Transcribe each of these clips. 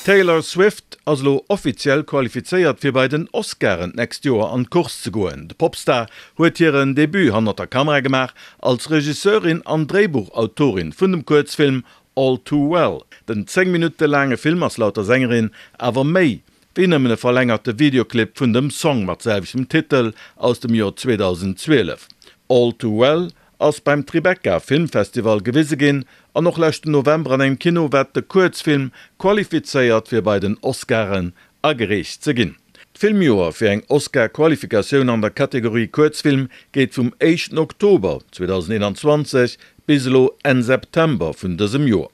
D'Taylor Swift ass elo offiziell qualifizéiert fir bei den Oscaren d'nächst Joer an d'Course ze goen. De Popstar huet hiren Debut hannert der Kamera gemaach als Regisseurin an Dréibuchautorin vun dem Kuerzfilm All Too Well. Den 10 Minutte laange Film ass laut der Sängerin awer méi wéi nëmmen e verlängerte Videoclip vun dem Song mat selwechtem Titel aus dem Joer 2012. All Too Well ass beim Tribeca Filmfestival gewise ginn an och leschten November an engem Kino wat de Kuerzfilm qualifizéiert fir bei den Oscaren agereecht ze ginn. D'Filmjoer fir eng Oscar-Qualifikatioun an der Kategorie Kuerzfilm geet vum éischten Oktober 2021 bis elo Enn September vun dësem Joer.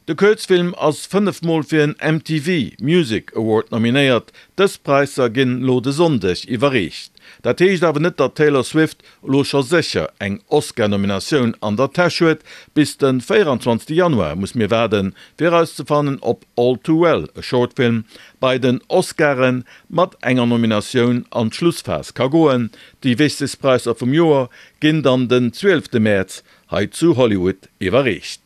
De Kuerzfilm ass 5 mol fir en MTV Music Award nominéiert. Dës Präisser ginn elo de Sonndeg iwwerreecht. Dat heescht awer net, datt d'Taylor Swift elo scho sécher eng Oscar-Nominatioun an der Täsch huet. Bis de 24 Januar muss mir waarden, fir erauszefannen, ob All Too Well, a Short Film, bei den Oscaren mat enger Nominatioun an d'Schlussphas ka goen. Déi wichtegst Präisser vum Joer ginn dann den 12 Mäerz hei zu Hollywood iwwerreecht.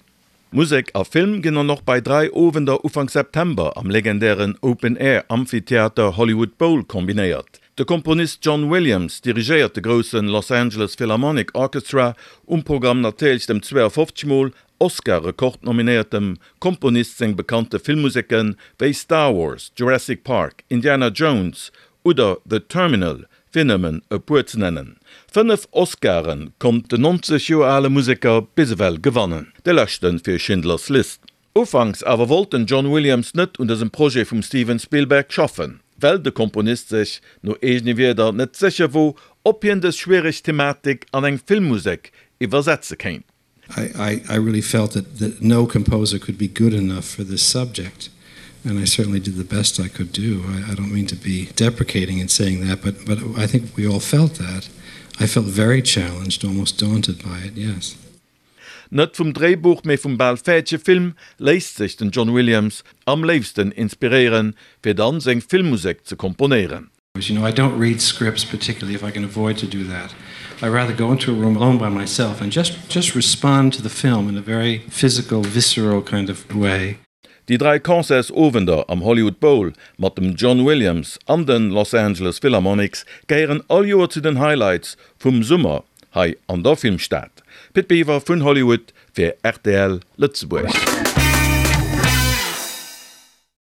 Musek a Film ginn dann och bei 3 Owender Ufank September am legendären Open-Air Amphitheater Hollywood Bowl kombinéiert. De Komponist John Williams dirigéiert de grousse Los Angeles Philharmonic Orchestra, um Programm natierlech dem 52 mol Oscar-Rekord-nominéiertem Komponist seng bekannte Filmmuseke wéi Star Wars, Jurassic Park, Indiana Jones oder The Terminal, fir nëmmen e puer ze nennen. 5 Oscare konnt den 90 Joer ale Museker bis ewell gewannen, de leschte fir Schindler's List. Ufanks awer wollt den John Williams net un dësem Projet vum Steven Spielberg schaffen, well de Komponist sech, no eegene Wierder, net sécher wor, ob hien dës schwiereg Thematik an eng Filmmusek iwwersetze kéint. I, I, I really felt that, that no composer could be good enough for this subject and I certainly did the best I could do. I, I don't mean to be deprecating in saying that, but, but I think we all felt that. I felt very challenged, almost daunted by it, yes. Net vum Dréibuch, mee vum bal fäerdege Film léisst sech den John Williams am léifsten inspiréieren, fir dann seng Filmmusek ze komponéieren. You know, I don't read scripts particularly if I can avoid to do that. I rather go into a room alone by myself and just just respond to the film in a very physical, visceral kind of way. Déi 3 Concertsowender am Hollywood Bowl mat dem John Williams an den Los Angeles Philharmonics gehéieren all Joer zu den Highlights vum Summer hei an der Filmstad. Pit Biwer vun Hollywood fir rtl Lëtzebuerg.